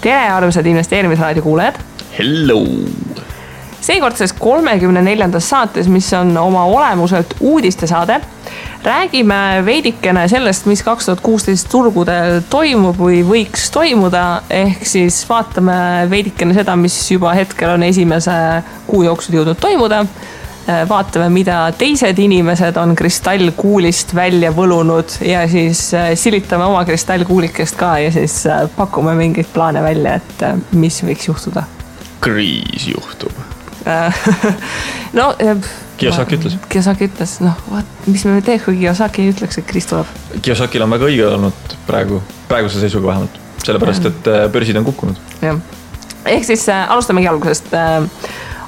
Tere, armsad investeerimisraadio kuulajad! Hello! Seekordses 34. saates, mis on oma olemuselt uudistesaade, räägime veidikene sellest, mis 2016 turgudel toimub või võiks toimuda, ehk siis vaatame veidikene seda, mis juba hetkel on esimese kuu jooksul jõudnud toimuda. Vaatame, mida teised inimesed on kristallkuulist välja võlunud ja siis silitame oma kristallkuulikest ka ja siis pakume mingeid plaane välja, et mis võiks juhtuda. Kriis juhtub. No, Kiyosaki ütles. Kiyosaki ütles, mis me teeks, kui Kiyosaki ütleks, et kriis tuleb? Kiyosakil on väga õige olnud praeguse seisuga vähemalt, sellepärast, et börsid on kukkunud. Ja. Ehk siis alustamegi algusest.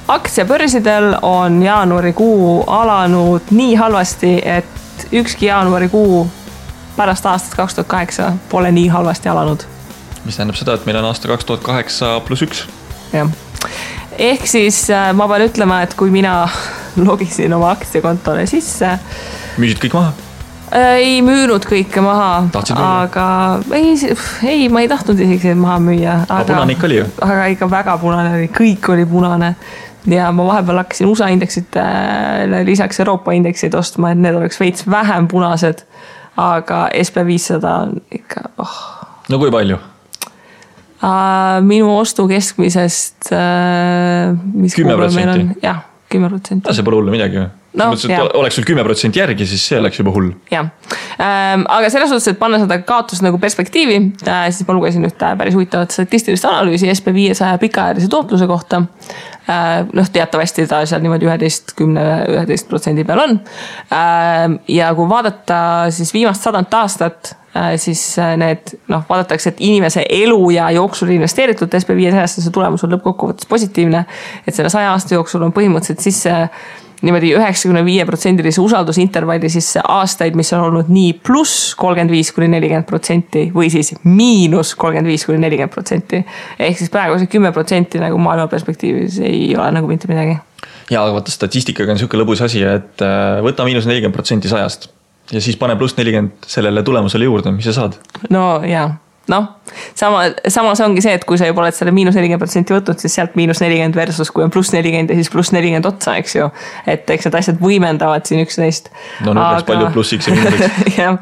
Aktsiabörsidel on jaanuarikuu alanud nii halvasti, et ükski jaanuarikuu pärast aastat 2008 pole nii halvasti alanud. Mis tähendab seda, et meil on aasta 2008+1. Jah. Ehk siis ma pean ütlema, et kui mina logisin oma aktsiakontole sisse... Müüsid kõik maha? Ei müünud kõike maha, aga ei, ma ei tahtnud isegi maha müüa. Aga punane ikka oli ju? Aga ikka väga punane oli, kõik oli punane. Ja ma vahepeal hakkasin USA indeksit lisaks Euroopa indeksid ostma, et need oleks veits vähem punased, aga SP500 on ikka... No kui palju? Minu ostu keskmisest 10%? Jah, 10%. See pole hullu midagi või? No, oleks sul 10% järgi, siis see oleks juba hull. Jah. Aga selles suhtes, et panna seda kaotust nagu perspektiivi, siis ma lugesin ühte päris huvitavat statistilist analüüsi SP500 pikaajalise tootluse kohta. Teatavasti ta seal niimoodi 11% peal on. Ja kui vaadata siis viimast 100 aastat, siis need, vaadatakse, et inimese elu ja jooksul investeeritud SP500 see tulemus on lõppkokkuvõttes positiivne, et selle 100 aasta jooksul on põhimõtteliselt sisse niimoodi 95% usaldusintervalli sisse aastaid, mis on olnud nii pluss 35–40% või siis miinus 35–40%. Ehk siis praegu see 10% nagu maailma perspektiivis ei ole nagu mitte midagi. Ja, aga vaata statistikaga on selline lõbus asi, et võta miinus 40% 100 ja siis pane pluss 40 sellele tulemusele juurde, mis sa saad? No jaa. Samas ongi see, et kui sa juba oled selle miinus 40% võtnud, siis sealt miinus 40 versus kui on pluss 40 ja siis pluss 40 otsa, eks ju. Et eks need asjad võimendavad siin üksteist. No peaks palju plussiks ja miinuseks. Ja.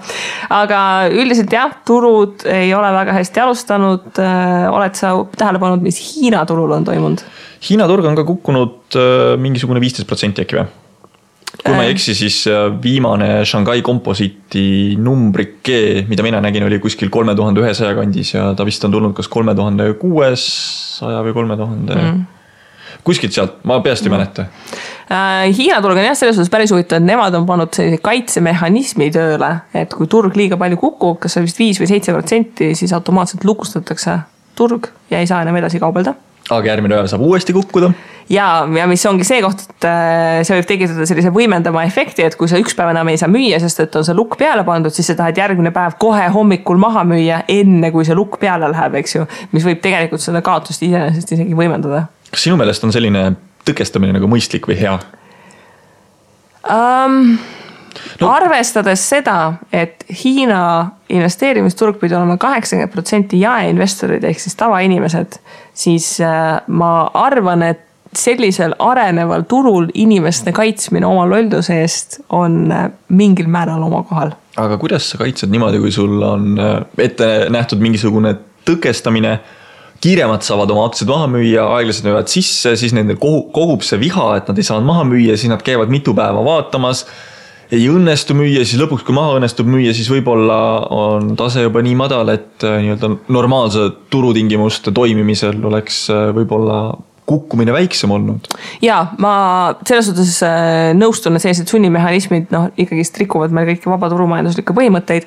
Aga üldiselt jah, turud ei ole väga hästi alustanud. Oled sa tähele pannud, mis Hiina turul on toimunud? Hiina turg on ka kukkunud mingisugune 15% äkki või? Kui ma ei eksi, siis viimane Shanghai komposiiti numbrike, mida mina nägin, oli kuskil 3100 kandis ja ta vist on tulnud kas 3600 või 3000. Kuskilt sealt, ma peast ei mäleta. Hiina turg on jah selles suhtes päris huvitav, et nemad on pannud sellise kaitsemehhanismi tööle, et kui turg liiga palju kukub, kas see vist 5 või 7%, siis automaatselt lukustatakse turg ja ei saa enam edasi kaubelda. Aga järgmine päev saab uuesti kukkuda. Ja mis ongi see koht, et see võib tekitada sellise võimendama efekti, et kui sa üks päev enam ei saa müüa, sest et on see lukk peale pandud, siis sa tahad järgmine päev kohe hommikul maha müüa, enne kui see lukk peale läheb, eks ju, mis võib tegelikult seda kaotust iseenesest isegi võimendada. Kas sinu meelest on selline tõkestamine nagu mõistlik või hea? Arvestades seda, et Hiina investeerimisturg pidi olema 80% jaeinvestorid ehk siis tavainimesed, siis ma arvan, et sellisel areneval turul inimeste kaitsmine oma lolduse eest on mingil määral oma kohal. Aga kuidas sa kaitsed niimoodi, kui sul on ette nähtud mingisugune tõkestamine, kiiremad saavad oma aktsiad maha müüa, aeglased müüvad sisse, siis nendel kogub see viha, et nad ei saanud maha müüa, siis nad käivad mitu päeva vaatamas, ei õnnestu müüa, siis lõpuks kui maha õnnestub müüa, siis võib-olla on tase juba nii madal, et normaalse turutingimuste toimimisel oleks võib-olla kukkumine väiksem olnud. Ja, ma selles suhtes nõustun, et sellised sunnimehhanismid ikkagi rikuvad meil kõiki vaba turumajanduslikke põhimõtteid.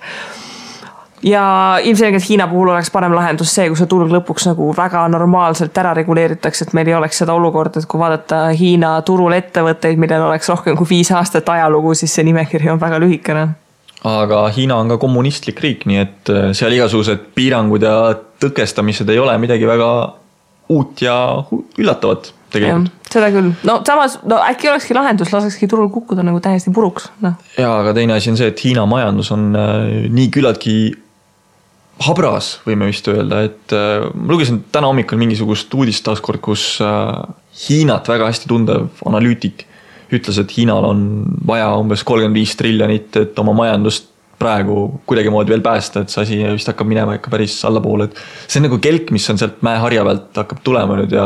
Ja ilmselgelt Hiina puhul oleks parem lahendus see, kui see turg lõpuks nagu väga normaalselt ära reguleeritakse, et meil ei oleks seda olukord, et kui vaadata Hiina turul ettevõtteid, millel oleks rohkem kui 5 aastat ajalugu, siis see nimekiri on väga lühikene. Aga Hiina on ka kommunistlik riik, nii et seal igasugused piirangud ja tõkestamised ei ole midagi väga uut ja üllatavat tegelikult. Ja, seda küll. Samas äkki olekski lahendus, lasekski turul kukkuda nagu täiesti puruks. Ja, aga teine asi on see, et Hiina majandus on nii küllaltki habras, võime vist öelda, et ma lugesin täna hommikul mingisugust uudist taaskord, kus Hiinat väga hästi tundev analüütik ütles, et Hiinal on vaja umbes 35 triljonit, et oma majandust praegu kuidagi moodi veel päästa, et see asi vist hakkab minema ikka päris allapoole, et see on nagu kelk, mis on sealt mäeharja pealt hakkab tulema nüüd ja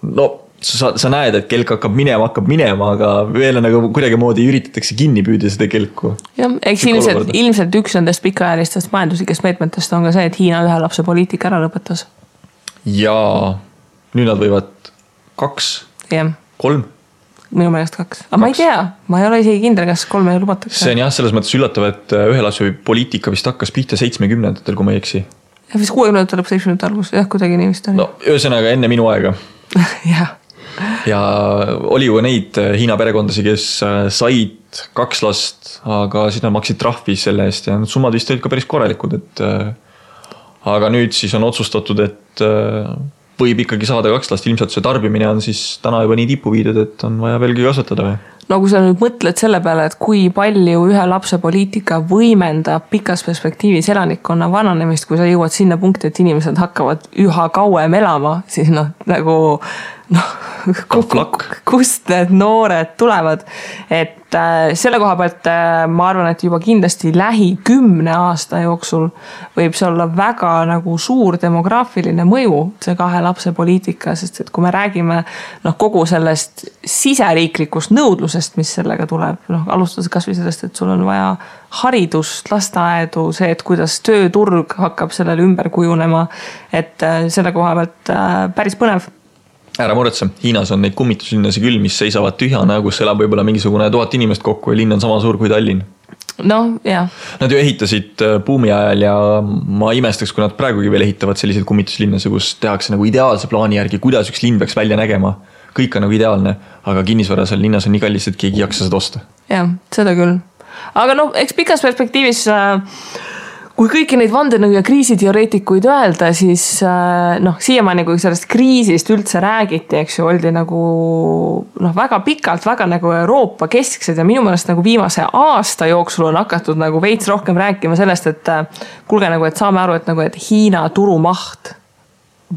no sa näed, et kelk hakkab minema, aga veel nagu kuidagi moodi üritatakse kinni püüda seda kelku. Jah, eks ilmselt üks nendest pikaajalistest majanduslikest meetmetest on ka see, et Hiina ühe lapse poliitika ära lõpetas. Ja nüüd nad võivad 2, 3 minu meelest 2. Aga ma ei tea, ma ei ole isegi kindel, kas 3 lubatakse. See on jah, selles mõttes üllatav, et ühe lapse poliitika vist hakkas pihta 70-ndatel, kui ma ei eksi. Ja vist 60-ndatel lõpp 70-ndate algus, jah, kuidagi nii vist oli. No, ühesõnaga enne minu aega. Jah. Ja oli ju neid Hiina perekondasi, kes said 2 last, aga siis nad maksid trahvi selle eest ja need summad vist olid ka päris korralikud, et aga nüüd siis on otsustatud, et võib ikkagi saada 2 last, ilmselt see tarbimine on siis täna juba nii tipu viidud, et on vaja veelgi kasvatada või? No kui sa nüüd mõtled selle peale, et kui palju ühe lapse poliitika võimendab pikas perspektiivis elanikkonna vananemist, kui sa jõuad sinna punkti, et inimesed hakkavad üha kauem elama, siis nagu kust need noored tulevad, et selle koha pealt ma arvan, et juba kindlasti lähi 10 aasta jooksul võib see olla väga nagu suur demograafiline mõju, see 2 lapse poliitika, sest et kui me räägime kogu sellest siseriiklikust nõudlusest, mis sellega tuleb, alustades kas või sellest, et sul on vaja haridust, lasteaedu, see, et kuidas tööturg hakkab sellele ümber kujunema, et selle koha pealt päris põnev. Ära muretse, Hiinas on neid kummituslinnasi küll, mis seisavad tühjana, kus elab võib-olla mingisugune 1000 inimest kokku ja linn on sama suur kui Tallinn. No, jah. Nad ju ehitasid buumi ajal ja ma imestaks, kui nad praegugi veel ehitavad selliseid kummituslinnasi, kus tehakse nagu ideaalse plaani järgi, kuidas üks linn peaks välja nägema. Kõik on nagu ideaalne, aga kinnisvara seal linnas on nii kallis, et keegi jaksa seda osta. Jah, seda küll. Aga eks pikas perspektiivis kui kõiki neid vandenõu ja kriisiteoreetikuid öelda, siis siiamaani, kui sellest kriisist üldse räägiti, eks ju, oldi nagu väga pikalt, väga nagu Euroopa kesksed ja minu meelest nagu viimase aasta jooksul on hakatud nagu veits rohkem rääkima sellest, et kuulge nagu, et saame aru, et Hiina turumaht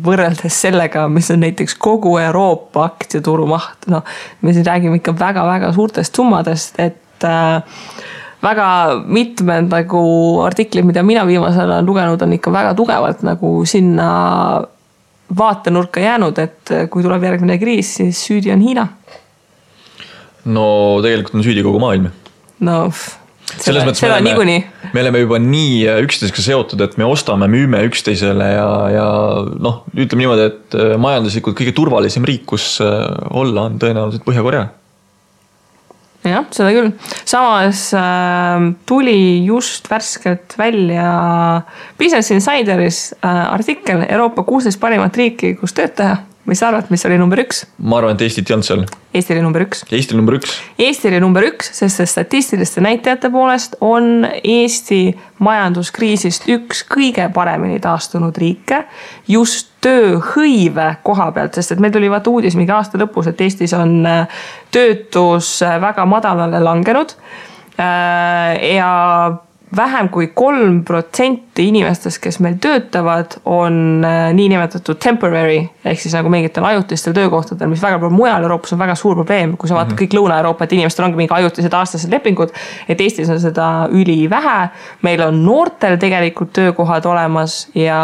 võrreldes sellega, mis on näiteks kogu Euroopa aktsiaturumaht, me siin räägime ikka väga-väga suurtest summadest, et väga mitmed nagu artiklid, mida mina viimasel olen lugenud, on ikka väga tugevalt nagu sinna vaatenurka jäänud, et kui tuleb järgmine kriis, siis süüdi on Hiina. No tegelikult on süüdi kogu maailm. No, seda niikuinii. Me oleme juba nii üksteisega seotud, et me ostame, müüme üksteisele ja ütleme niimoodi, et majanduslikult kõige turvalisem riik, kus olla on tõenäoliselt Põhja-Korea. Jah, seda küll. Samas tuli just värskelt välja Business Insideris artikkel Euroopa 16 parimat riiki, kus tööd teha. Mis sa arvad, mis oli number 1? Ma arvan, et Eestit ei olnud seal. Eesti oli number 1. Eesti oli number 1. Eesti oli number 1, sest statistiliste näitajate poolest on Eesti majanduskriisist üks kõige paremini taastunud riike just tööhõive koha pealt, sest et meil tuli vaata uudis mingi aasta lõpus, et Eestis on töötus väga madalale langenud ja vähem kui 3% inimestest, kes meil töötavad, on niinimetatud temporary, ehk siis nagu mingitel ajutistel töökohtadel, mis väga palju mujal Euroopas on väga suur probleem, kui sa vaatad kõik Lõuna-Euroopa, et inimestel ongi mingi ajutised aastased lepingud, et Eestis on seda üli vähe, meil on noortel tegelikult töökohad olemas ja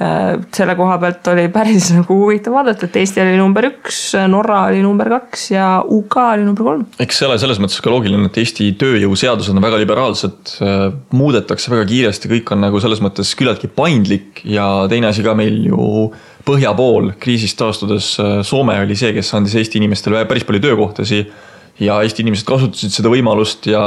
selle koha pealt oli päris nagu huvitav vaadata, et Eesti oli number 1, Norra oli number 2 ja UK oli number 3. Eks see ole selles mõttes ka loogiline, et Eesti tööjõuseadused on väga liberaalsed, muudetakse väga kiiresti, kõik on nagu selles mõttes küllaltki paindlik ja teine asi ka meil ju põhja pool kriisist taastudes Soome oli see, kes andis Eesti inimestele päris palju töökohtasi ja Eesti inimesed kasutasid seda võimalust ja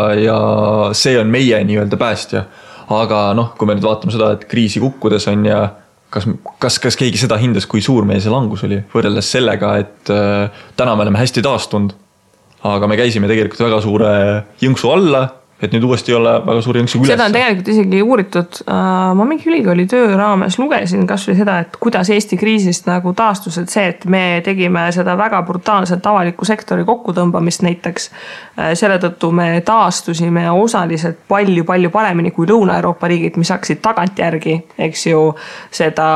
see on meie nii-öelda päästja. Aga kui me nüüd vaatame seda, et kriisi kukkudes on ja kas keegi seda hindas, kui suur meie see langus oli, võrreldes sellega, et täna me oleme hästi taastunud, aga me käisime tegelikult väga suure jõnksu alla, et nüüd uuesti ei ole väga suuri jõnksi üles. Seda on tegelikult isegi uuritud. Ma mingi ülikooli töö raames lugesin kas või seda, et kuidas Eesti kriisist nagu taastus, et see, et me tegime seda väga brutaalselt avaliku sektori kokkutõmbamist näiteks. Selle tõttu me taastusime osaliselt palju paremini kui Lõuna-Euroopa riigid, mis hakkasid tagantjärgi, eks ju, seda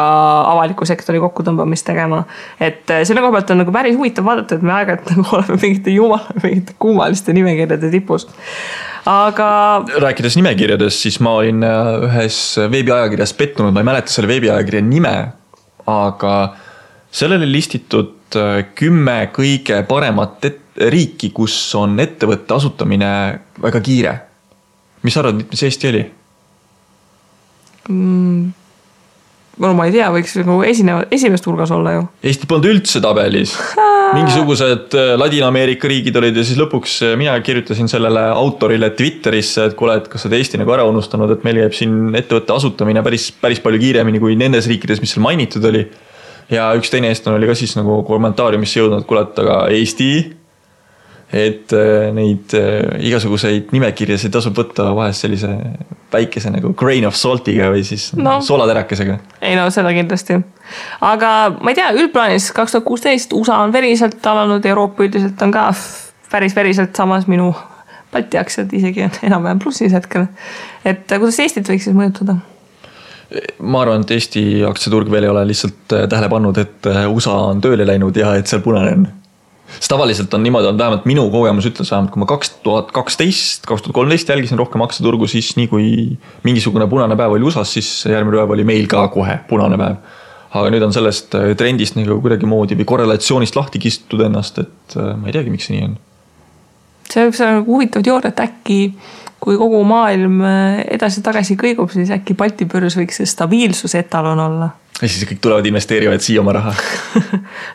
avaliku sektori kokkutõmbamist tegema. Et selle koha pealt on nagu päris huvitav vaadata, et me aeg-ajalt nagu oleme mingite kummaliste nimekirjade tipus. Aga... Rääkides nimekirjades, siis ma olin ühes veebiajakirjas pettunud, ma ei mäleta selle veebiajakirja nime, aga sellele listitud 10 kõige paremat riiki, kus on ettevõtte asutamine väga kiire. Mis arvad, mis Eesti oli? Ma ei tea, võiks nagu esimest hulgas olla ju. Eesti polnud üldse tabelis. Mingisugused Ladina-Ameerika riigid olid ja siis lõpuks mina kirjutasin sellele autorile Twitterisse, et kuule, et kas sa Eesti nagu ära unustanud, et meil jääb siin ettevõtte asutamine päris palju kiiremini kui nendes riikides, mis seal mainitud oli. Ja üks teine eestlane oli ka siis nagu kommentaariumisse jõudnud, kuule, et aga Eesti, et neid igasuguseid nimekirjasid tasub võtta vahest sellise väikese nagu grain of saltiga või siis soolaterakesega. Ei no, seda kindlasti. Aga ma ei tea, üldplaanis 2016 USA on veriselt alanud, Euroopa üldiselt on ka päris veriselt samas minu Balti aktsiad isegi on enam-vähem plussis hetkel. Et kuidas Eestit võiks siis mõjutada? Ma arvan, et Eesti aktsiaturg veel ei ole lihtsalt tähele pannud, et USA on tööle läinud ja et seal punane on. Sest tavaliselt on niimoodi, on vähemalt minu kogemus ütles vähemalt, kui ma 2012-2013 jälgisin rohkem aktsiaturgu, siis nii kui mingisugune punane päev oli USAs, siis järgmine päev oli meil ka kohe punane päev. Aga nüüd on sellest trendist nagu kuidagi moodi või korrelatsioonist lahti kistud ennast, et ma ei teagi, miks see nii on. See võib olla huvitav teooria, et äkki kui kogu maailm edasi-tagasi kõigub, siis äkki Balti börs võiks see stabiilsuse etalon olla. Ja siis kõik tulevad investeerivad siia oma raha.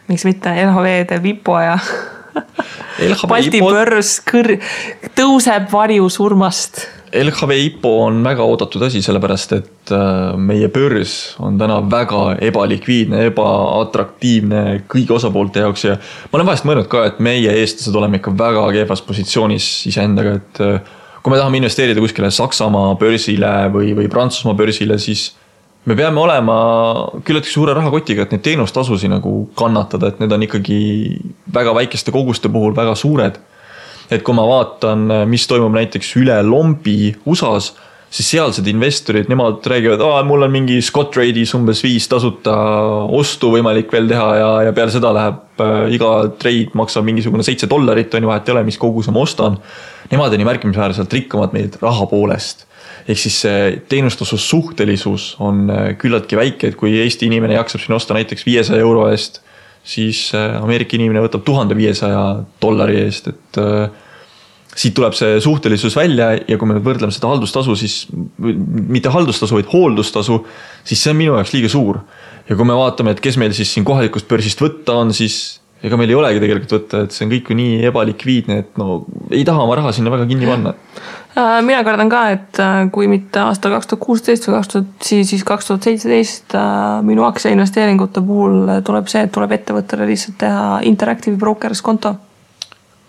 Miks mitte LHV teeb IPO ja Balti börs tõuseb varju surmast. LHV IPO on väga oodatud asi, sellepärast et meie börs on täna väga ebalikviidne, ebaatraktiivne kõigi osapoolte jaoks ja ma olen vahest mõelnud ka, et meie eestlased oleme ikka väga kehvas positsioonis iseendaga, et kui me tahame investeerida kuskile Saksamaa börsile või Prantsusmaa börsile, siis me peame olema küllaltki suure rahakotiga, et neid teenustasusi nagu kannatada, et need on ikkagi väga väikeste koguste puhul väga suured. Et kui ma vaatan, mis toimub näiteks üle lombi USAs, siis sealsed investorid, nemad räägivad, mul on mingi Scottrade'is umbes 5 tasuta ostu võimalik veel teha ja peale seda läheb iga trade maksab mingisugune $7, on ju vahet ei ole, mis kogus ma ostan. Nemad on nii märkimisväärselt rikkamad meid raha poolest. Ehk siis see teenustasus suhtelisus on küllaltki väike, et kui Eesti inimene jaksab siin osta näiteks €500 eest, siis Ameerika inimene võtab $1500 eest, et siit tuleb see suhtelisus välja ja kui me võrdleme seda haldustasu, siis mitte haldustasu, vaid hooldustasu, siis see on minu jaoks liiga suur. Ja kui me vaatame, et kes meil siis siin kohalikust börsist võtta on, siis ega meil ei olegi tegelikult võtta, et see on kõik nii ebalikviidne, et ei taha oma raha sinna väga kinni panna. Mina kardan ka, et kui mitte aastal 2016 või siis 2017 minu aktsia investeeringute puhul tuleb see, et tuleb ettevõttele lihtsalt teha Interactive Brokers konto.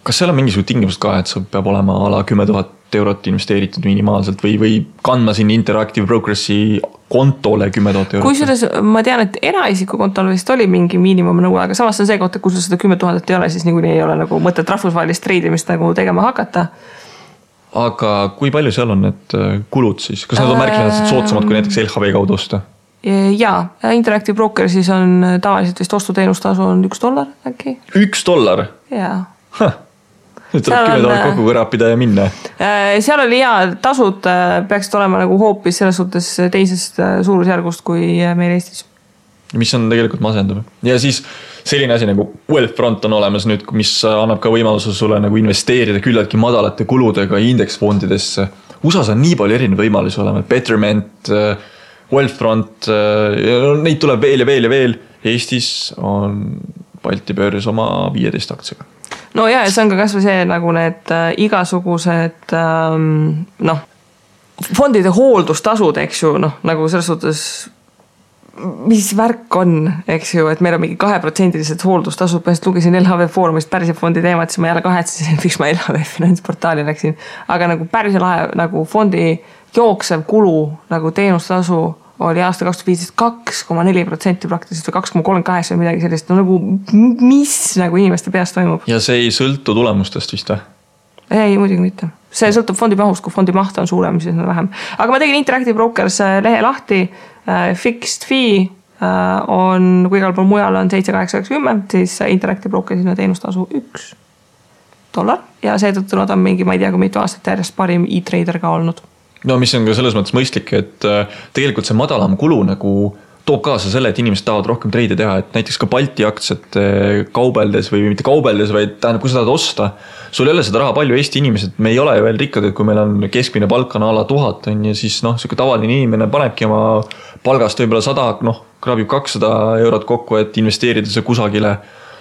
Kas seal on mingisugune tingimused ka, et see peab olema ala 10 000 € investeeritud minimaalselt või kandma siin Interactive Brokersi kontole 10 000 €? Kui selles, ma tean, et eraisiku kontol vist oli mingi miinimumnõue, aga samas on see koht, et kui sul seda 10 000 ei ole, siis niikuinii ei ole nagu mõtet rahvusvahelist treidimist nagu tegema hakata. Aga kui palju seal on need kulud siis? Kas nad on märkimisväärselt soodsamad kui näiteks LHV kaudu osta? Jaa, Interactive Brokersis on tavaliselt vist ostuteenustasu on $1 äkki. $1? Jaa. Nüüd tuleb 10 000 kokku kõrapida ja minna. Seal oli tasud peaksid olema nagu hoopis selles suhtes teisest suurusjärgust kui meil Eestis. Mis on tegelikult masendav. Ja siis selline asi nagu Wealthfront on olemas nüüd, mis annab ka võimaluse sulle nagu investeerida küllaltki madalate kuludega indeksfondidesse. USAs on nii palju erinevaid võimalusi olema. Betterment, Wealthfront, neid tuleb veel ja veel ja veel. Eestis on Balti börs oma 15 aktsiaga. No ja see on ka kasvõi see nagu need igasugused fondide hooldustasud, eks ju, nagu selles suhtes mis värk on, eks ju, et meil on mingi 2% hooldustasud, põhimõtteliselt lugesin LHV Foorumist Pärise fondi teemat, siis ma jälle kahetsesin, miks ma LHV finantsportaali läksin. Aga nagu Pärise lahe nagu fondi jooksev kulu nagu teenustasu oli aasta 2015 2,4% praktiliselt või 2,38 või midagi sellist. No nagu mis nagu inimeste peast toimub? Ja see ei sõltu tulemustest vist või? Ei, muidugi mitte. See sõltub fondi mahust, kui fondi maht on suurem, siis on vähem. Aga ma tegin Interactive Brokers lehe lahti, fixed fee on, kui igal pool mujal on 7,890, siis Interactive Brokersina teenustasu $1 ja seetõttu nad on mingi, ma ei tea, kui mitu aastat järjest parim e-trader ka olnud. No mis on ka selles mõttes mõistlik, et tegelikult see madalam kulu nagu toob kaasa selle, et inimesed tahavad rohkem treide teha, et näiteks ka Balti aktsiat kaubeldes või mitte kaubeldes, vaid tähendab, kui sa tahad osta, sul ei ole seda raha palju. Eesti inimesed, me ei ole ju veel rikkad, et kui meil on keskmine palk on ala 1000 on ja siis selline tavaline inimene panebki oma palgast võib-olla 100, kraabib 200 eurot kokku, et investeerida see kusagile.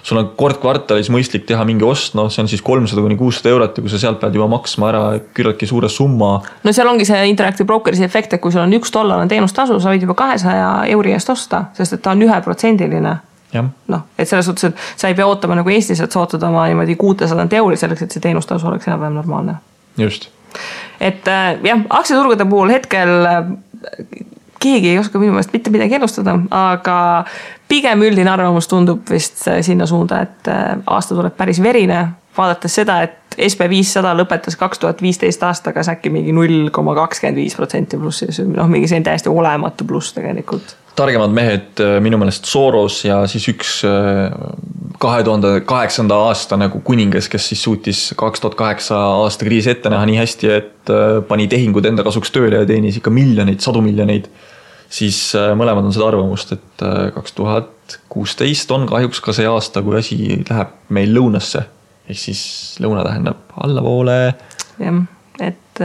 Sul on kord kvartalis mõistlik teha mingi ost, see on siis 300–600 eurot ja kui sa sealt pead juba maksma ära küllaltki suure summa. No seal ongi see Interactive Brokersi efekt, et kui sul on $1 teenustasu, sa võid juba 200 euri eest osta, sest et ta on 1%. Et selles suhtes, et sa ei pea ootama nagu Eestis, et sa ootad oma 600 euri selleks, et see teenustasu oleks enam-vähem normaalne. Just. Et jah, aktsiaturgude puhul hetkel keegi ei oska minu meelest mitte midagi ennustada, aga pigem üldine arvamus tundub vist sinna suunda, et aasta tuleb päris verine, vaadates seda, et SP500 lõpetas 2015 aastaga äkki mingi 0,25% plussis, mingi see on täiesti olematu pluss tegelikult. Targemad mehed minu meelest Soros ja siis üks 2008. aasta nagu kuningas, kes siis suutis 2008 aasta kriisi ette näha nii hästi, et pani tehingud enda kasuks tööle ja teenis ikka miljoneid, 100 miljoneid. Siis mõlemad on seda arvamust, et 2016 on kahjuks ka see aasta, kui asi läheb meil lõunasse. Ehk siis lõuna tähendab allapoole. Jah, et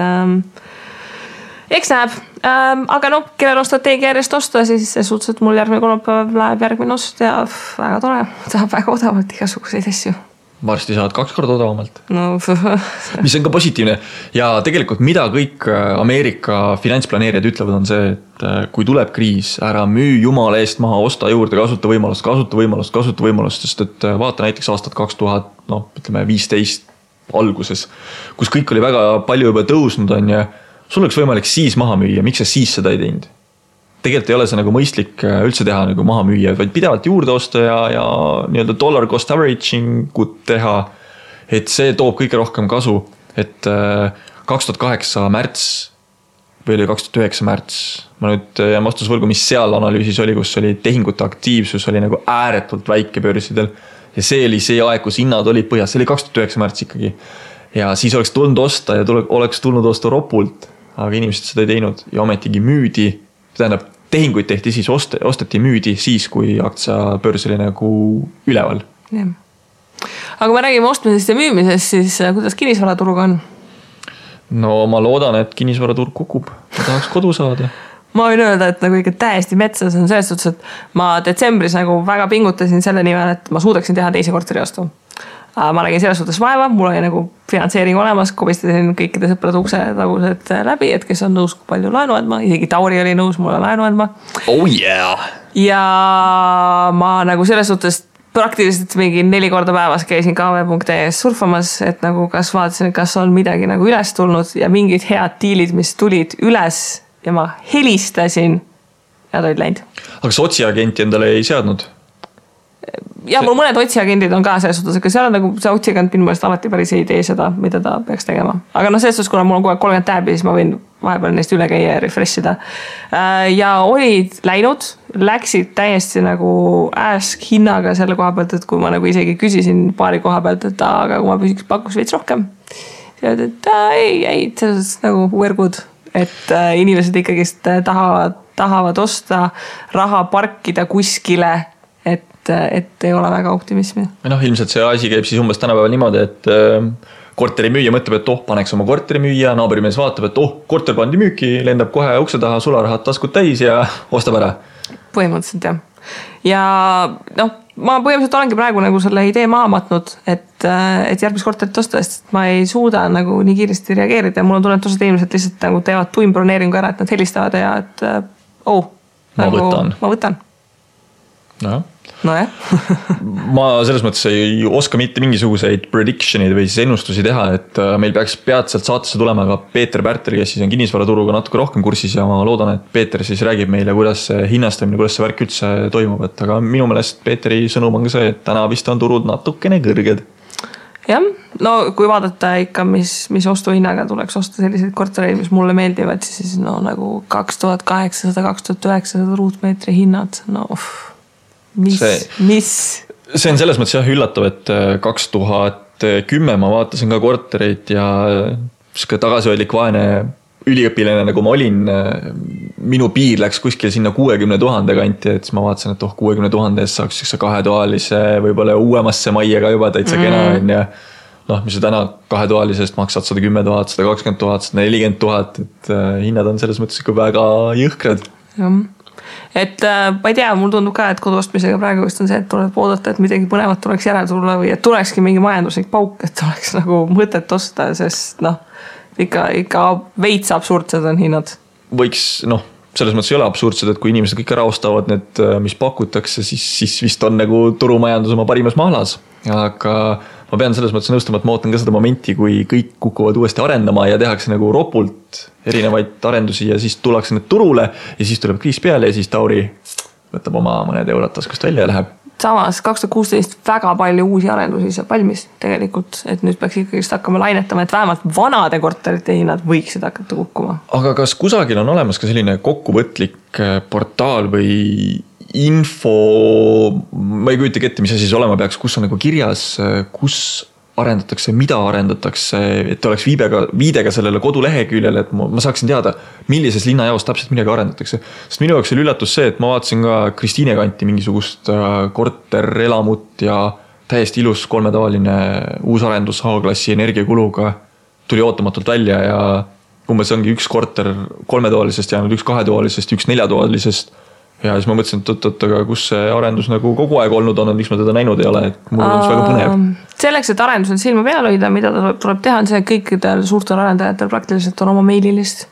eks näeb. Aga kellel on strateegia järjest osta, siis see suhteliselt mul järgmine kolmapäev läheb järgmine ost ja väga tore. Tahab väga odavalt igasuguseid asju. Varsti saad 2 korda odavamalt. Mis on ka positiivne. Ja tegelikult mida kõik Ameerika finantsplaneerijad ütlevad on see, et kui tuleb kriis, ära müü jumala eest maha, osta juurde, kasuta võimalust, sest et vaata näiteks aastat 2015 alguses, kus kõik oli väga palju juba tõusnud on ja sul oleks võimalik siis maha müüa, miks sa siis seda ei teinud? Tegelikult ei ole see nagu mõistlik üldse teha nagu maha müüa, vaid pidevalt juurde osta ja nii-öelda dollar cost averaging ut teha, et see toob kõige rohkem kasu, et 2008 märts või oli 2009 märts, ma nüüd jään vastusvõrgu, mis seal analüüsis oli, kus oli tehingute aktiivsus oli nagu ääretult väike börsidel ja see oli see aeg, kus hinnad olid põhjas, see oli 2009 märts ikkagi ja siis oleks tulnud osta ja oleks tulnud osta ropult, aga inimesed seda ei teinud ja ometigi müüdi. Tähendab, tehinguid tehti siis, osteti müüdi siis, kui aktsiabörs oli nagu üleval. Ja. Aga kui me räägime ostmisest ja müümisest, siis kuidas kinnisvaraturg on? No ma loodan, et kinnisvaraturg kukub. Ma tahaks kodu saada. Ma võin öelda, et nagu ikka täiesti metsas on selles suhtes, et ma detsembris nagu väga pingutasin selle nimel, et ma suudaksin teha teise korteriostu. Ma nägin selles suhtes vaeva, mul oli nagu finantseering olemas, kobistasin kõikide sõprade ukse tagused läbi, et kes on nõus kui palju laenu andma, isegi Tauri oli nõus mulle laenu andma. Oh yeah! Ja ma nagu selles suhtes praktiliselt mingi 4 korda päevas käisin kv.es surfamas, et nagu kas vaatasin, kas on midagi nagu üles tulnud ja mingid head diilid, mis tulid üles ja ma helistasin ja ta olid läinud. Aga kas otsiagenti endale ei seadnud? Ja mul mõned otsiagendid on ka selles suhtes, aga seal on nagu see otsiagent minu meelest alati päris ei tee seda, mida ta peaks tegema. Aga selles suhtes, kuna mul on kogu aeg 30 tääbi, siis ma võin vahepeal neist üle käia ja refreshida. Ja olid läinud, läksid täiesti nagu ask hinnaga selle koha pealt, et kui ma nagu isegi küsisin paari koha pealt, et aga kui ma pakkus veits rohkem. Siis et ei, selles nagu we're good, et inimesed ikkagi tahavad osta raha parkida kuskile, et ei ole väga optimismi. Ilmselt see asi käib siis umbes tänapäeval niimoodi, et korteri müüja mõtleb, et paneks oma korteri müüa, naaburimees vaatab, et korter pandi müüki, lendab kohe ukse taha, sularahad taskud täis ja ostab ära. Põhimõtteliselt jah. Ja ma põhimõtteliselt olengi praegu nagu selle idee maha matnud, et järgmist korterit osta, sest ma ei suuda nagu nii kiiresti reageerida ja mul on tunnetused inimesed lihtsalt nagu teevad tuimbroneeringu ära, et nad helistavad ja et ma võtan. Ma võtan. Nojah. Ma selles mõttes ei oska mitte mingisuguseid prediction'id või siis ennustusi teha, et meil peaks peatselt saatesse tulema ka Peeter Pärtel, kes siis on kinnisvaraturuga natuke rohkem kursis ja ma loodan, et Peeter siis räägib meile, kuidas see hinnastamine, kuidas see värk üldse toimub, et aga minu meelest Peeteri sõnum on ka see, et täna vist on turud natukene kõrged. Jah, no kui vaadata ikka, mis ostuhinnaga tuleks osta selliseid kortereid, mis mulle meeldivad, siis no nagu 2800-2900 ruutmeetri hinnad, no mis? See on selles mõttes jah üllatav, et 2010 ma vaatasin ka kortereid ja tagasihoidlik vaene üliõpilane, nagu ma olin, minu piir läks kuskil sinna 60 000 kanti, et siis ma vaatasin, et 60 000 eest saaks üks kahetoalise, võib-olla uuemasse majja ka juba täitsa kena on ja mis sa täna kahetoalisest maksad 110 000, 120 000, 140 000, et hinnad on selles mõttes ikka väga jõhkrad. Jah. Et ma ei tea, mul tundub ka, et koduostmisega praegu vist on see, et tuleb oodata, et midagi põnevat tuleks järele tulla või et tulekski mingi majanduslik pauk, et oleks nagu mõtet osta, sest ikka veits absurdsed on hinnad. Võiks, selles mõttes ei ole absurdsed, et kui inimesed kõik ära ostavad need, mis pakutakse, siis vist on nagu turumajandus oma parimas mahlas. Aga ma pean selles mõttes nõustama, et ma ootan ka seda momenti, kui kõik kukuvad uuesti arendama ja tehakse nagu ropult erinevaid arendusi ja siis tullakse need turule ja siis tuleb kriis peale ja siis Tauri võtab oma mõned eurot taskust välja ja läheb. Samas 2016 väga palju uusi arendusi saab valmis tegelikult, et nüüd peaks ikkagi hakkama lainetama, et vähemalt vanade korterite hinnad võiksid hakata kukkuma. Aga kas kusagil on olemas ka selline kokkuvõtlik portaal või info, ma ei kujuta ette, mis asi see olema peaks, kus on nagu kirjas, kus arendatakse, mida arendatakse, et oleks viidega sellele koduleheküljele, et ma saaksin teada, millises linnajaos täpselt midagi arendatakse. Sest minu jaoks oli üllatus see, et ma vaatasin ka Kristiine kanti mingisugust korterelamut ja täiesti ilus kolmetoaline uusarendus A-klassi energiakuluga tuli ootamatult välja ja umbes ongi üks korter kolmetoalisest jäänud, üks kahetoalisest, üks neljatoalisest. Ja siis ma mõtlesin, et aga kus see arendus nagu kogu aeg olnud on, miks ma teda näinud ei ole, et mul on väga põnev. Selleks, et arendusel silma peal hoida, mida tuleb teha, on see, et kõikidel suurtel arendajatel praktiliselt on oma meililist.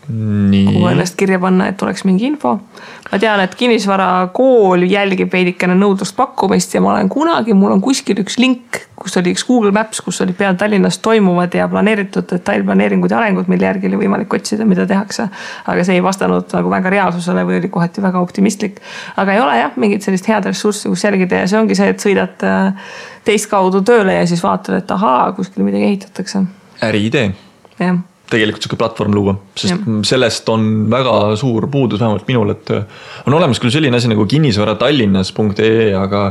Kuhu ennast kirja panna, et oleks mingi info. Ma tean, et kinnisvara kool jälgib veidikene nõudlust pakkumist ja mul on kuskil üks link, kus oli üks Google Maps, kus oli peal Tallinnas toimuvad ja planeeritud detailplaneeringud ja arengud, mille järgi oli võimalik otsida, mida tehakse. Aga see ei vastanud nagu väga reaalsusele või oli kohati väga optimistlik. Aga ei ole jah, mingit sellist head ressurssi, kus jälgida ja see ongi see, et sõidad teist kaudu tööle ja siis vaatad, et ahaa, kuskil midagi ehitatakse. Äriidee. Jah. Tegelikult selline platvorm luua, sest sellest on väga suur puudus vähemalt minul, et on olemas küll selline asi nagu kinnisvaratallinnas.ee, aga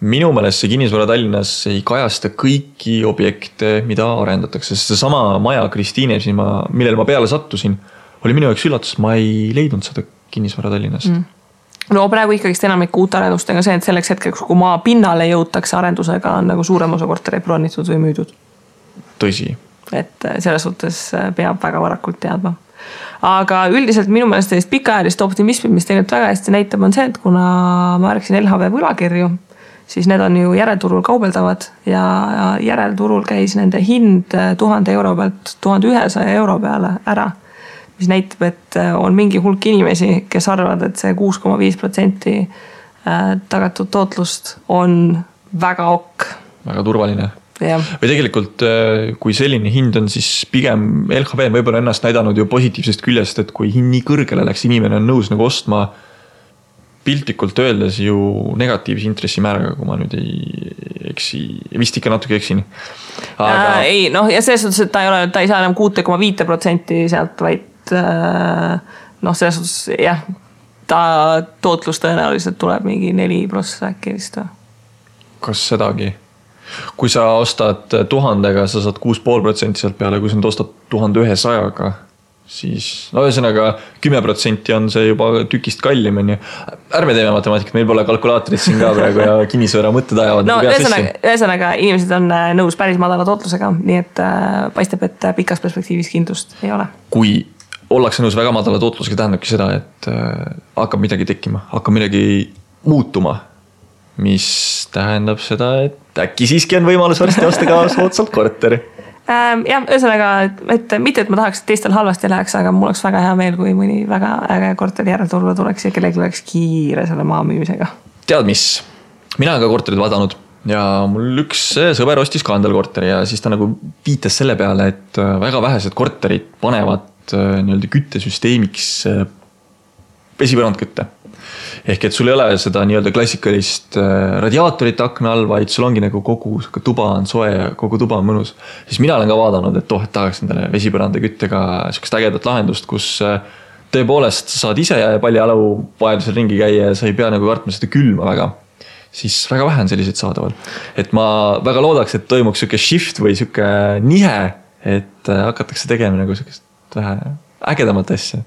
minu meelest see kinnisvara Tallinnas ei kajasta kõiki objekte, mida arendatakse, sest see sama maja Kristiine, millele ma peale sattusin, oli minu jaoks üllatus, ma ei leidnud seda kinnisvara Tallinnast. No praegu ikkagist enamik uut arendustega see, et selleks hetkeks, kui maa pinnale jõutakse arendusega, on nagu suurem osa kortereid plaanitud või müüdud. Tõsi. Et selles suhtes peab väga varakult teadma. Aga üldiselt minu meelest sellist pikaajalist optimismi, mis tegelikult väga hästi näitab, on see, et kuna ma rääkisin LHV võlakirju, siis need on ju järelturul kaubeldavad ja järelturul käis nende hind 1000 euro pealt 1100 euro peale ära, mis näitab, et on mingi hulk inimesi, kes arvavad, et see 6,5% tagatud tootlust on väga ok. Väga turvaline. Ja. Või tegelikult, kui selline hind on, siis pigem LHV on võib-olla ennast näidanud ju positiivsest küljest, et kui hind nii kõrgele läks, inimene on nõus nagu ostma piltlikult öeldes ju negatiivse intressimääraga, kui ma nüüd ei eksi, vist ikka natuke eksin. Aga... Ei, ja selles suhtes, et ta ei saa enam 6,5% sealt, vaid selles suhtes, jah, ta tootlus tõenäoliselt tuleb mingi 4% äkki vist. Kas sedagi? Kui sa ostad 1000-ga, sa saad 6,5% sealt peale, kui sa nüüd ostad 1100-ga, siis ühesõnaga 10% on see juba tükist kallim. Ärme teeme matemaatikat, meil pole kalkulaatorit siin ka praegu ja kinnisvara mõtted ajavad. Ühesõnaga inimesed on nõus päris madala tootlusega, nii et paistab, et pikas perspektiivis kindlust ei ole. Kui ollakse nõus väga madala tootlusega, tähendabki seda, et hakkab midagi tekkima, hakkab midagi muutuma, mis tähendab seda, et äkki siiski on võimalus varsti osta ka soodsalt korteri. Jah, ühesõnaga, et mitte, et ma tahaks, et teistel halvasti läheks, aga mul oleks väga hea meel, kui mõni väga äge korteri järelturule tuleks ja kellelgi oleks kiire selle maa müümisega. Tead mis? Mina olen ka korterid vaadanud ja mul üks sõber ostis ka endale korteri ja siis ta nagu viitas selle peale, et väga vähesed korterid panevad nii-öelda küttesüsteemiks vesipõrandkütte. Ehk et sul ei ole seda nii-öelda klassikalist radiaatorit akna all, vaid sul ongi nagu kogu tuba on soe ja kogu tuba on mõnus. Siis mina olen ka vaadanud, et et tahaks endale vesipõranda küttega sellist ägedat lahendust, kus tõepoolest saad ise paljajalu vajadusel ringi käia ja sa ei pea nagu kartma seda külma väga. Siis väga vähe on selliseid saadaval. Et ma väga loodaks, et toimuks selline shift või selline nihe, et hakatakse tegema nagu sellist vähe ägedamat asja.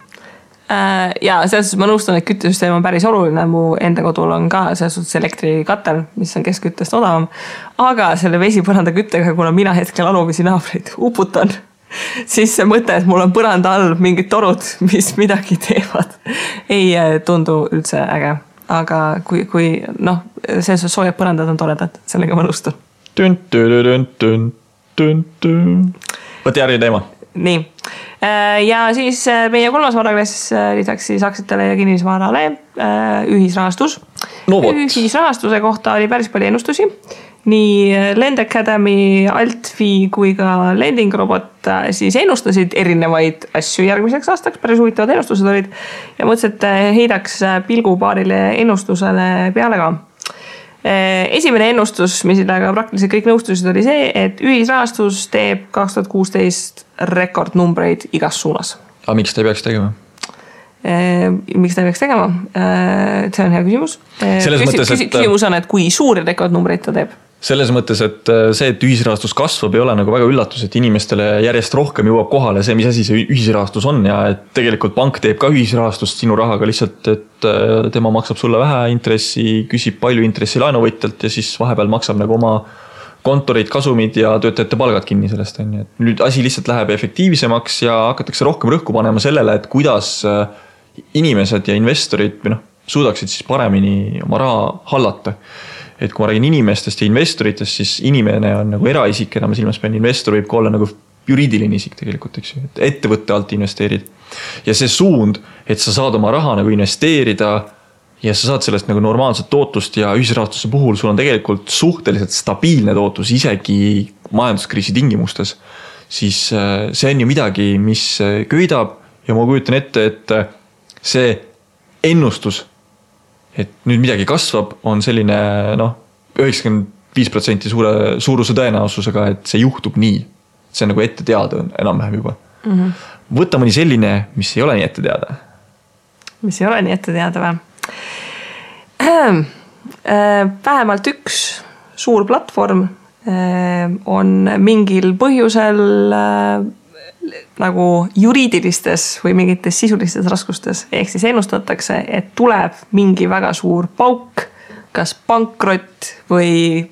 Ja selles suhtes ma nõustun, et küttesüsteem on päris oluline, mu enda kodul on ka selles suhtes elektrikatel, mis on keskküttest odavam, aga selle vesipõranda küttega, kuna mina hetkel alumisi naabreid uputan, siis see mõte, et mul on põranda all mingid torud, mis midagi teevad, ei tundu üldse äge, aga kui selles suhtes soojad põrandad on toredad, sellega ma nõustun. Võti järgi teema. Nii. Ja siis meie kolmas varaklass lisaks siis aktsiatele ja kinnisvarale ühisrahastus. No võt. Ühisrahastuse kohta oli päris palju ennustusi. Nii Lend Academy, Altfi kui ka Lending Robot siis ennustasid erinevaid asju järgmiseks aastaks. Päris huvitavad ennustused olid ja mõtlesin, et heidaks pilgu paarile ennustusele peale ka. Esimene ennustus, millega praktiliselt kõik nõustusid, oli see, et ühisrahastus teeb 2016 rekordnumbreid igas suunas. Aga miks ta ei peaks tegema? Miks ta ei peaks tegema? See on hea küsimus. Küsimus on, et kui suuri rekordnumbreid ta teeb? Selles mõttes, et see, et ühisrahastus kasvab, ei ole nagu väga üllatus, et inimestele järjest rohkem jõuab kohale see, mis asi see ühisrahastus on ja et tegelikult pank teeb ka ühisrahastust sinu rahaga lihtsalt, et tema maksab sulle vähe intressi, küsib palju intressi laenuvõtjalt ja siis vahepeal maksab nagu oma kontorid, kasumid ja töötajate palgad kinni sellest. Nüüd asi lihtsalt läheb efektiivsemaks ja hakatakse rohkem rõhku panema sellele, et kuidas inimesed ja investorid suudaksid siis paremini oma raha hallata. Et kui ma räägin inimestest ja investoritest, siis inimene on nagu eraisik, enam silmas pean, investor võib ka olla nagu juriidiline isik tegelikult, eks ju, et ettevõtte alt investeerid. Ja see suund, et sa saad oma raha nagu investeerida ja sa saad sellest nagu normaalset tootlust ja ühisrahastuse puhul sul on tegelikult suhteliselt stabiilne tootlus isegi majanduskriisi tingimustes, siis see on ju midagi, mis köidab ja ma kujutan ette, et see ennustus, et nüüd midagi kasvab, on selline 95% suuruse tõenäosusega, et see juhtub nii. See on nagu ette teada enam-vähem juba. Võtta mõni selline, mis ei ole nii ette teada. Mis ei ole nii ette teada või? Vähemalt üks suur platvorm on mingil põhjusel nagu juriidilistes või mingites sisulistes raskustes. Ehk siis ennustatakse, et tuleb mingi väga suur pauk, kas pankrott või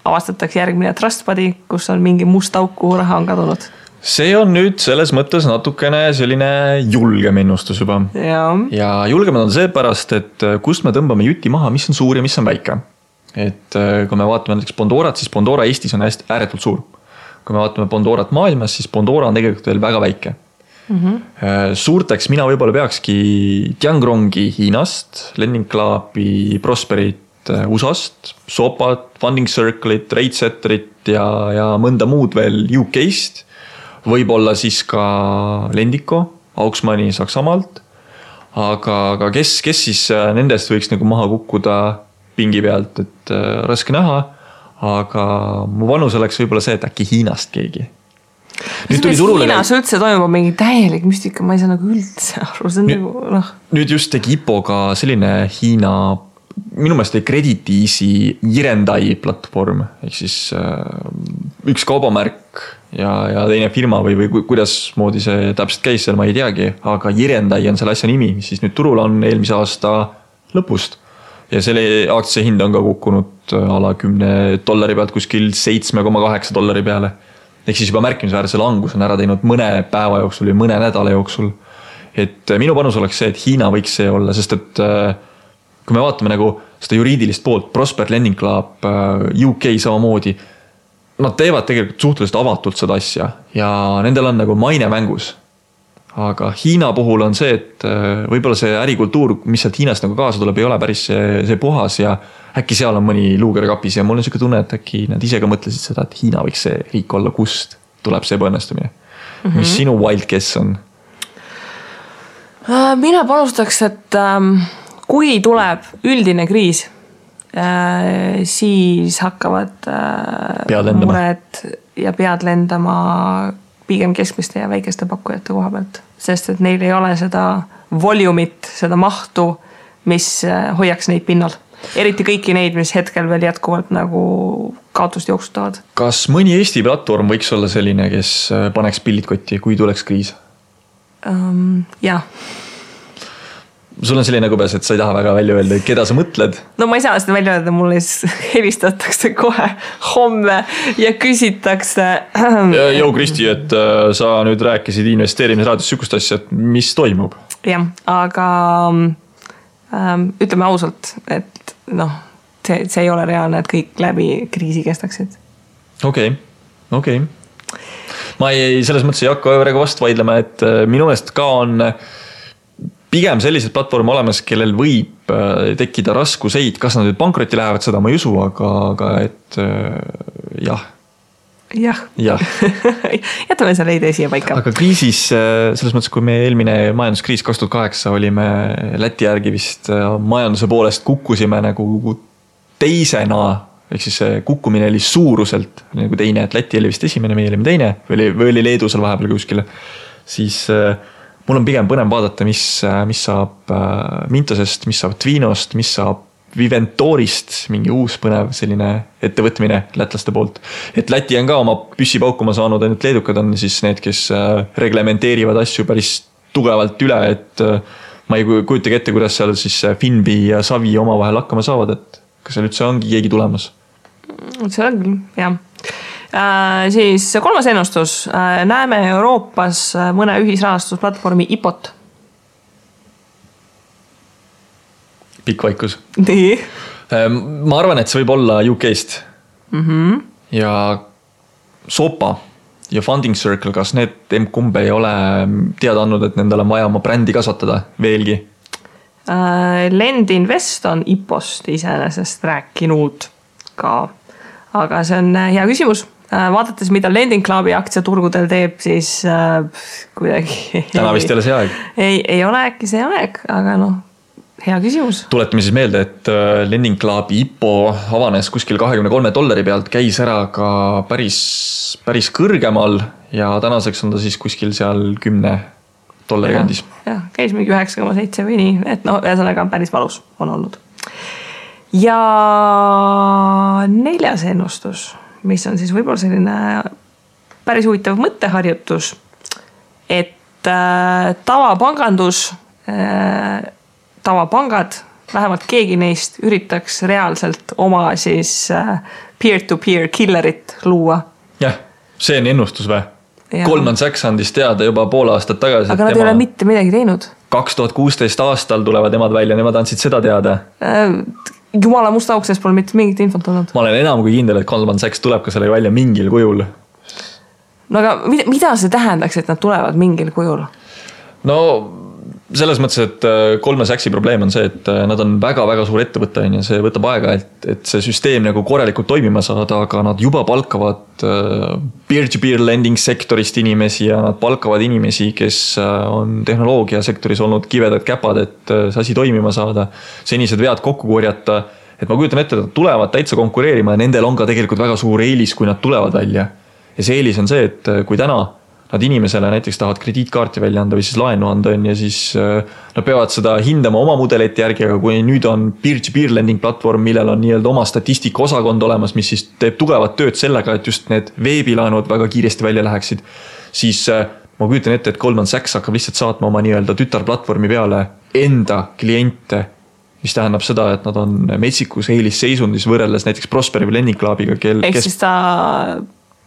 avastatakse järgmine trustbody, kus on mingi must auk, kuhu raha on kadunud. See on nüüd selles mõttes natukene selline julgem ennustus juba. Ja julgem on seepärast, et kust me tõmbame juti maha, mis on suur ja mis on väike. Et kui me vaatame näiteks Bondorat, siis Bondora Eestis on ääretult suur. Kui me vaatame Bondorat maailmas, siis Bondora on tegelikult veel väga väike. Suurteks mina võib-olla peakski Tiangrongi Hiinast, Lending Clubi, Prosperit USA-st, Sopat, Funding Circle'it, Ratesetterit ja mõnda muud veel UK-st. Võib-olla siis ka Lendiko, Auksmani Saksamaalt. Aga kes siis nendest võiks nagu maha kukkuda pingi pealt, et raske näha. Aga mu vanus oleks võib-olla see, et äkki Hiinast keegi. Hiinas üldse toimub mingi täielik müstika, ma ei saa nagu üldse aru. Nüüd just tegi IPO-ga selline Hiina, minu meelest oli Credit Easy Jirendai platvorm, ehk siis üks kaubamärk ja teine firma või kuidas moodi see täpselt käis seal, ma ei teagi, aga Jirendai on selle asja nimi, mis siis nüüd turul on eelmise aasta lõpust. Ja selle aktsia hind on ka kukkunud ala $10 pealt kuskil $7,8 peale. Ehk siis juba märkimisväärse langus on ära teinud mõne päeva jooksul või mõne nädala jooksul. Et minu panus oleks see, et Hiina võiks see olla, sest et kui me vaatame nagu seda juriidilist poolt, Prosper Lending Club, UK samamoodi, nad teevad tegelikult suhteliselt avatult seda asja ja nendel on nagu maine mängus. Aga Hiina puhul on see, et võib-olla see ärikultuur, mis sealt Hiinast nagu kaasa tuleb, ei ole päris see puhas ja äkki seal on mõni luuger kapis ja mul on selline tunne, et äkki nad ise ka mõtlesid seda, et Hiina võiks see riik olla, kust tuleb see ebaõnnestumine. Mis sinu wild guess on? Mina panustaks, et kui tuleb üldine kriis, siis hakkavad mured ja pead lendama pigem keskmiste ja väikeste pakkujate koha pealt, sest et neil ei ole seda volumit, seda mahtu, mis hoiaks neid pinnal. Eriti kõiki neid, mis hetkel veel jätkuvalt nagu kaotust jooksutavad. Kas mõni Eesti platvorm võiks olla selline, kes paneks pillid kotti, kui tuleks kriis? Jah. Sul on selline kõbes, et sa ei taha väga välja öelda, keda sa mõtled? No ma ei saa seda välja öelda, mulle helistatakse kohe homme ja küsitakse. Jou Kristi, et sa nüüd rääkisid investeerimisraadios sükust asja, et mis toimub? Jah, aga ütleme ausalt, et see ei ole reaalne, et kõik läbi kriisi kestaksid. Okei. Ma selles mõttes ei hakka väga vastu vaidlema, et minu meelest ka on pigem sellised platvorm olemas, kellel võib tekkida raskuseid, kas nad nüüd pankrotti lähevad, seda ma ei usu, aga et jah. Jätame selle idee siia paika. Aga kriisis, selles mõttes, kui me eelmine majanduskriis 2008 olime Läti järgi vist majanduse poolest kukkusime nagu teisena, ehk siis kukkumine oli suuruselt nagu teine, et Läti oli vist esimene, meie olime teine, või oli Leedu seal vahepeal kuskile, siis mul on pigem põnev vaadata, mis saab Mintosest, mis saab Tvinost, mis saab Viventorist, mingi uus põnev selline ettevõtmine lätlaste poolt. Et Läti on ka oma püssi paukuma saanud, ainult leedukad on siis need, kes reglementeerivad asju päris tugevalt üle, et ma ei kujutagi ette, kuidas seal siis Finbi ja Savi oma vahel hakkama saavad, et kas seal üldse ongi keegi tulemas? See on küll, jah. Siis kolmas ennustus. Näeme Euroopas mõne ühisrahastusplatvormi IPOT. Pikk vaikus. Nii. Ma arvan, et see võib olla UK-st. Ja Sopa ja Funding Circle, kas need kumb ei ole teada andnud, et nendel on vaja oma brändi kasvatada veelgi? Lend Invest on IPOst iseenesest rääkinud ka. Aga see on hea küsimus. Vaadates, mida Lending Clubi aktsiaturgudel teeb, siis kuidagi... Täna vist ei ole see aeg. Ei ole äkki see aeg, aga hea küsimus. Tuletame siis meelde, et Lending Clubi IPO avanes kuskil $23 pealt, käis ära ka päris kõrgemal ja tänaseks on ta siis kuskil seal $10 kandis. Jah, käis mingi 9,7 või nii, et ühesõnaga päris valus on olnud. Ja neljas ennustus, mis on siis võib-olla selline päris huvitav mõtteharjutus, et tavapangad, vähemalt keegi neist üritaks reaalselt oma siis peer-to-peer killerit luua. Jah, see on ennustus või? Goldman Sachs andis teada juba pool aastat tagasi. Aga nad ei ole mitte midagi teinud. 2016 aastal tulevad nemad välja, nemad andsid seda teada. Jumala musta auksest pole mitte mingit infot olnud. Ma olen enam kui kindel, et Goldman Sachs tuleb ka selle välja mingil kujul. No aga mida see tähendaks, et nad tulevad mingil kujul? No selles mõttes, et Goldman Sachsi probleem on see, et nad on väga-väga suur ettevõte ja see võtab aega, et see süsteem nagu korralikult toimima saada, aga nad juba palkavad peer-to-peer lending sektorist inimesi ja nad palkavad inimesi, kes on tehnoloogiasektoris olnud kivedad käpad, et see asi toimima saada, senised vead kokku korjata, et ma kujutan ette, et nad tulevad täitsa konkureerima ja nendel on ka tegelikult väga suur eelis, kui nad tulevad välja. Ja see eelis on see, et kui täna nad inimesele näiteks tahavad krediitkaarti välja anda või siis laenu anda ja siis nad peavad seda hindama oma mudelite järgi, aga kui nüüd on peer-to-peer lending platvorm, millel on nii-öelda oma statistika osakond olemas, mis siis teeb tugevat tööd sellega, et just need veebilaenud väga kiiresti välja läheksid, siis ma kujutan ette, et Goldman Sachs hakkab lihtsalt saatma oma nii-öelda tütarplatvormi peale enda kliente, mis tähendab seda, et nad on metsikus eelisseisundis võrreldes näiteks Prosperi või Lending Clubiga. Ehk siis ta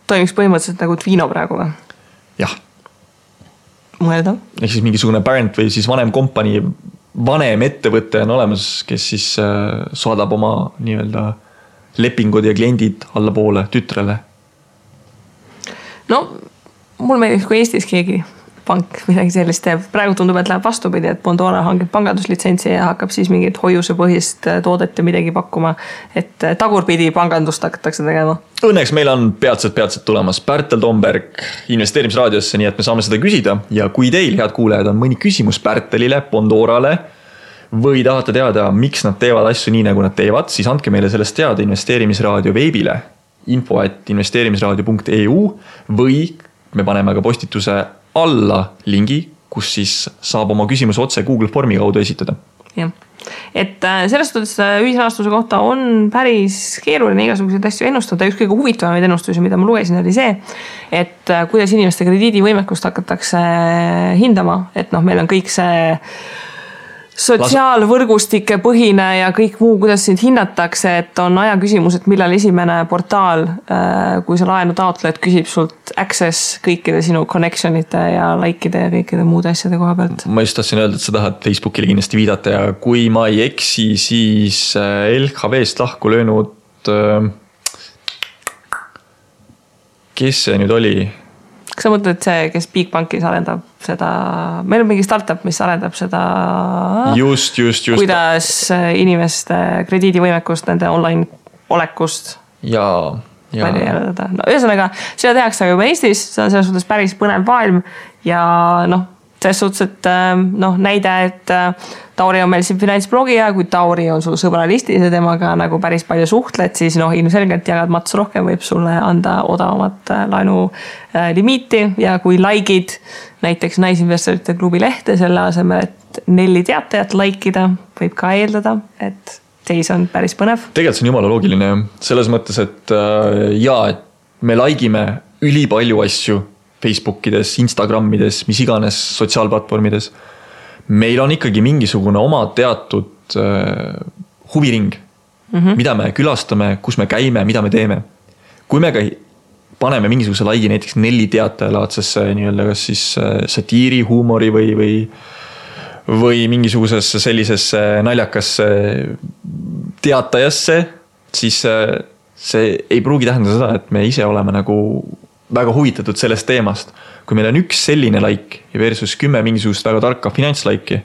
toimiks põhimõtteliselt nagu Twino praegu või? Jah. Mõeldav. Ehk siis mingisugune parent või siis vanem kompanii, vanem ettevõte on olemas, kes siis saadab oma nii-öelda lepingud ja kliendid alla poole tütrele. mul meeldib, kui Eestis keegi pank midagi sellist teeb. Praegu tundub, et läheb vastupidi, et Bondora hangib panganduslitsentsi ja hakkab siis mingit hoiusepõhist toodet ja midagi pakkuma. Et tagurpidi pangandust hakatakse tegema. Õnneks meil on peatselt tulemas Pärtel Tomberg investeerimisraadiosse, nii et me saame seda küsida. Ja kui teil, head kuulajad, on mõni küsimus Pärtelile, Bondorale või tahate teada, miks nad teevad asju nii, nagu nad teevad, siis andke meile sellest teada investeerimisraadio veebile info@investeerimisraadio.eu või me paneme ka postituse alla lingi, kus siis saab oma küsimus otse Google Formi kaudu esitada. Jah. Et selles suhtes ühisrahastuse kohta on päris keeruline igasuguseid asju ennustada. Üks kõige huvitavamaid ennustusi, mida ma lugesin, oli see, et kuidas inimeste krediidivõimekust hakatakse hindama. Et meil on kõik see sotsiaalvõrgustike põhine ja kõik muu, kuidas sind hinnatakse, et on aja küsimus, et millal esimene portaal, kui sa laenu taotled, küsib sult access kõikide sinu connectionite ja likeide ja kõikide muude asjade koha pealt. Ma just tahtsin öelda, et sa tahad Facebookile kindlasti viidata ja kui ma ei eksi, siis LHV-st lahku löönud, kes see nüüd oli? Kas sa mõtled see, kes Bigbankis arendab seda, meil on mingi startup, mis arendab seda, just. kuidas inimeste krediidivõimekust, nende online olekust järeldada. No, ühesõnaga, seda tehakse juba Eestis, see on selles suhtes päris põnev maailm ja selles suhtes, et näide, et Tauri on meil siin finantsblogi ja kui Tauri on sul sõbralistis ja temaga nagu päris palju suhtled, siis ilmselgelt jagad mats rohkem, võib sulle anda odavamat laenu limiiti ja kui likeid näiteks Naisinvestorite klubi lehte selle asemel, et 4 teatajat likeida, võib ka eeldada, et seis on päris põnev. Tegelikult see on jumala loogiline selles mõttes, et et me likeime ülipalju asju Facebookides, Instagramides, mis iganes sotsiaalplatvormides. Meil on ikkagi mingisugune oma teatud huviring, mida me külastame, kus me käime, mida me teeme. Kui me ka paneme mingisuguse laigi näiteks 4 teatajalaadses nii-öelda kas siis satiiri, huumori või mingisugusesse sellisesse naljakasse teatajasse, siis see ei pruugi tähendada seda, et me ise oleme nagu väga huvitatud sellest teemast. Kui meil on üks selline like versus 10 mingisugust väga tarka finantslaiki,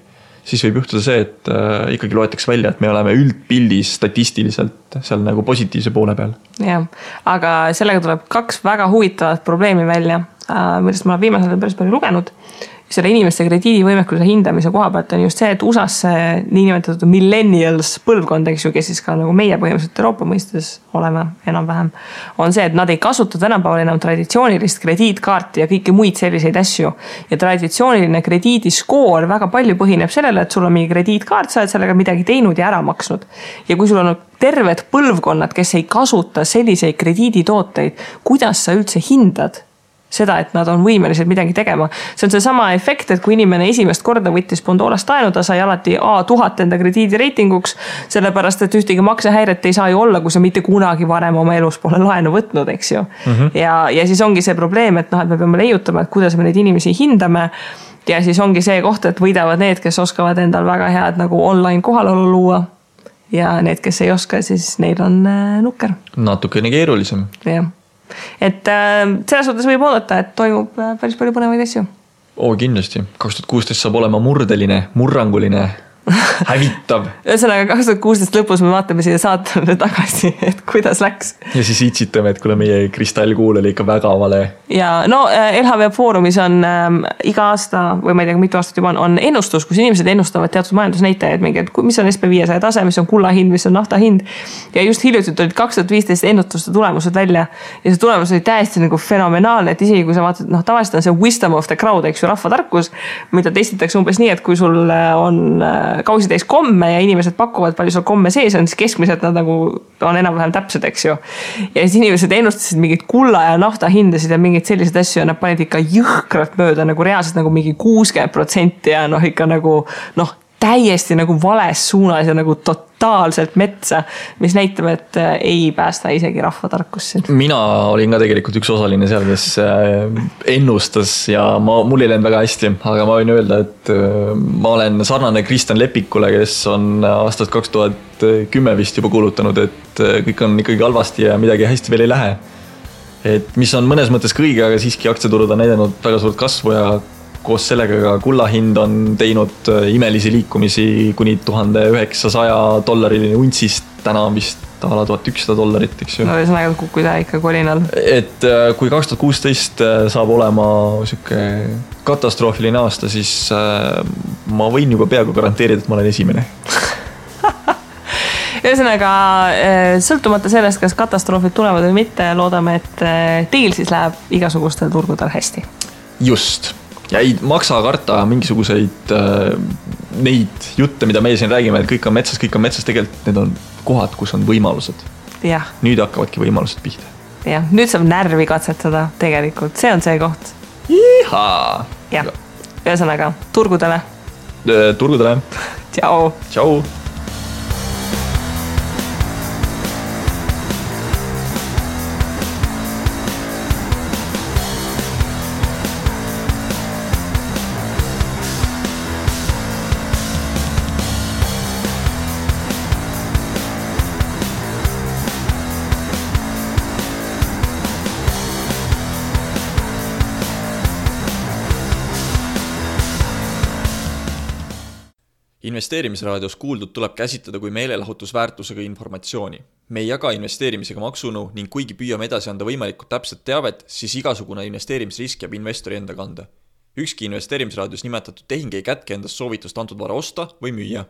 siis võib juhtuda see, et ikkagi loetakse välja, et me oleme üldpildis statistiliselt seal nagu positiivse poole peal. Jah, aga sellega tuleb 2 väga huvitavat probleemi välja, millest ma olen viimasel päris palju lugenud. Selle inimeste krediidivõimekuse hindamise koha pealt on just see, et USA's niinimetatud millennials põlvkond, eks ju, kes siis ka nagu meie põhimõtteliselt Euroopa mõistes oleme enam-vähem, on see, et nad ei kasuta tänapäeval enam traditsioonilist krediitkaarti ja kõiki muid selliseid asju. Ja traditsiooniline krediidiskoor väga palju põhineb sellele, et sul on mingi krediitkaart, sa oled sellega midagi teinud ja ära maksnud. Ja kui sul on terved põlvkonnad, kes ei kasuta selliseid krediiditooteid, kuidas sa üldse hindad seda, et nad on võimelised midagi tegema. See on see sama efekt, et kui inimene esimest korda võttis Bondorast laenu, ta sai alati A1000 enda krediidireitinguks, sellepärast, et ühtegi maksehäiret ei saa ju olla, kui sa mitte kunagi varem oma elus pole laenu võtnud, eks ju. Ja siis ongi see probleem, et me peame leiutama, et kuidas me neid inimesi hindame ja siis ongi see koht, et võidavad need, kes oskavad endal väga head nagu online kohalolu luua ja need, kes ei oska, siis neil on nukker. Natukene keerulisem. Jah. Et selles suhtes võib oodata, et toimub päris palju põnevaid asju. Kindlasti. 2016 saab olema murdeline, murranguline, hävitav. Ühesõnaga 2016 lõpus me vaatame siia saatele tagasi, et kuidas läks. Ja siis itsitame, et kuule meie kristallkuul oli ikka väga vale. Ja LHV Foorumis on iga aasta, või ma ei tea, mitu aastat juba on ennustus, kus inimesed ennustavad teatud majandusnäitajaid, mis on SP500 tase, mis on kulla hind, mis on nafta hind. Ja just hiljuti olid 2015 ennustuste tulemused välja. Ja see tulemus oli täiesti nagu fenomenaalne, et isegi kui sa vaatad, tavaliselt on see wisdom of the crowd, eks ju, rahvatarkus, mida testitakse umbes nii, et kui sul on kausi täis komme ja inimesed pakuvad palju sul komme sees on, siis keskmiselt nad nagu on enam-vähem täpsed, eks ju. Ja siis inimesed ennustasid mingid kulla ja nafta hindasid ja mingid sellised asju ja nad panid ikka jõhkralt mööda nagu reaalselt nagu mingi 60% ja ikka nagu täiesti nagu vales suunas ja nagu totaalselt metsa, mis näitab, et ei päästa isegi rahvatarkusse. Mina olin ka tegelikult üks osaline seal, kes ennustas ja mul ei läinud väga hästi, aga ma võin öelda, et ma olen sarnane Kristjan Lepikule, kes on aastast 2010 vist juba kuulutanud, et kõik on ikkagi halvasti ja midagi hästi veel ei lähe. et mis on mõnes mõttes kõige, aga siiski aktsiaturud on näidanud väga suurt kasvu ja koos sellega ka kulla hind on teinud imelisi liikumisi kuni $1900 untsist, täna on vist ala $1100, eks ju. No ühesõnaga kukkuda ikka kolinal. Et kui 2016 saab olema siuke katastroofiline aasta, siis ma võin juba peaaegu garanteerida, et ma olen esimene. Ühesõnaga, sõltumata sellest, kas katastroofid tulevad või mitte, loodame, et teil siis läheb igasugustel turgudel hästi. Just. Ja ei maksa karta mingisuguseid neid jutte, mida meie siin räägime, et kõik on metsas, tegelikult need on kohad, kus on võimalused. Jah. Nüüd hakkavadki võimalused pihta. Jah, nüüd saab närvi katsetada tegelikult, see on see koht. Ihaa! Jah, ühesõnaga, turgudele. Turgudele. Tšau! Tšau! Investeerimisraadios kuuldud tuleb käsitleda kui meelelahutusväärtusega informatsiooni. Me ei jaga investeerimisega maksunu ning kuigi püüame edasi anda võimalikult täpset teavet, siis igasugune investeerimisrisk jääb investori enda kanda. Ükski investeerimisraadios nimetatud tehing ei kätke endast soovitust antud vara osta või müüa.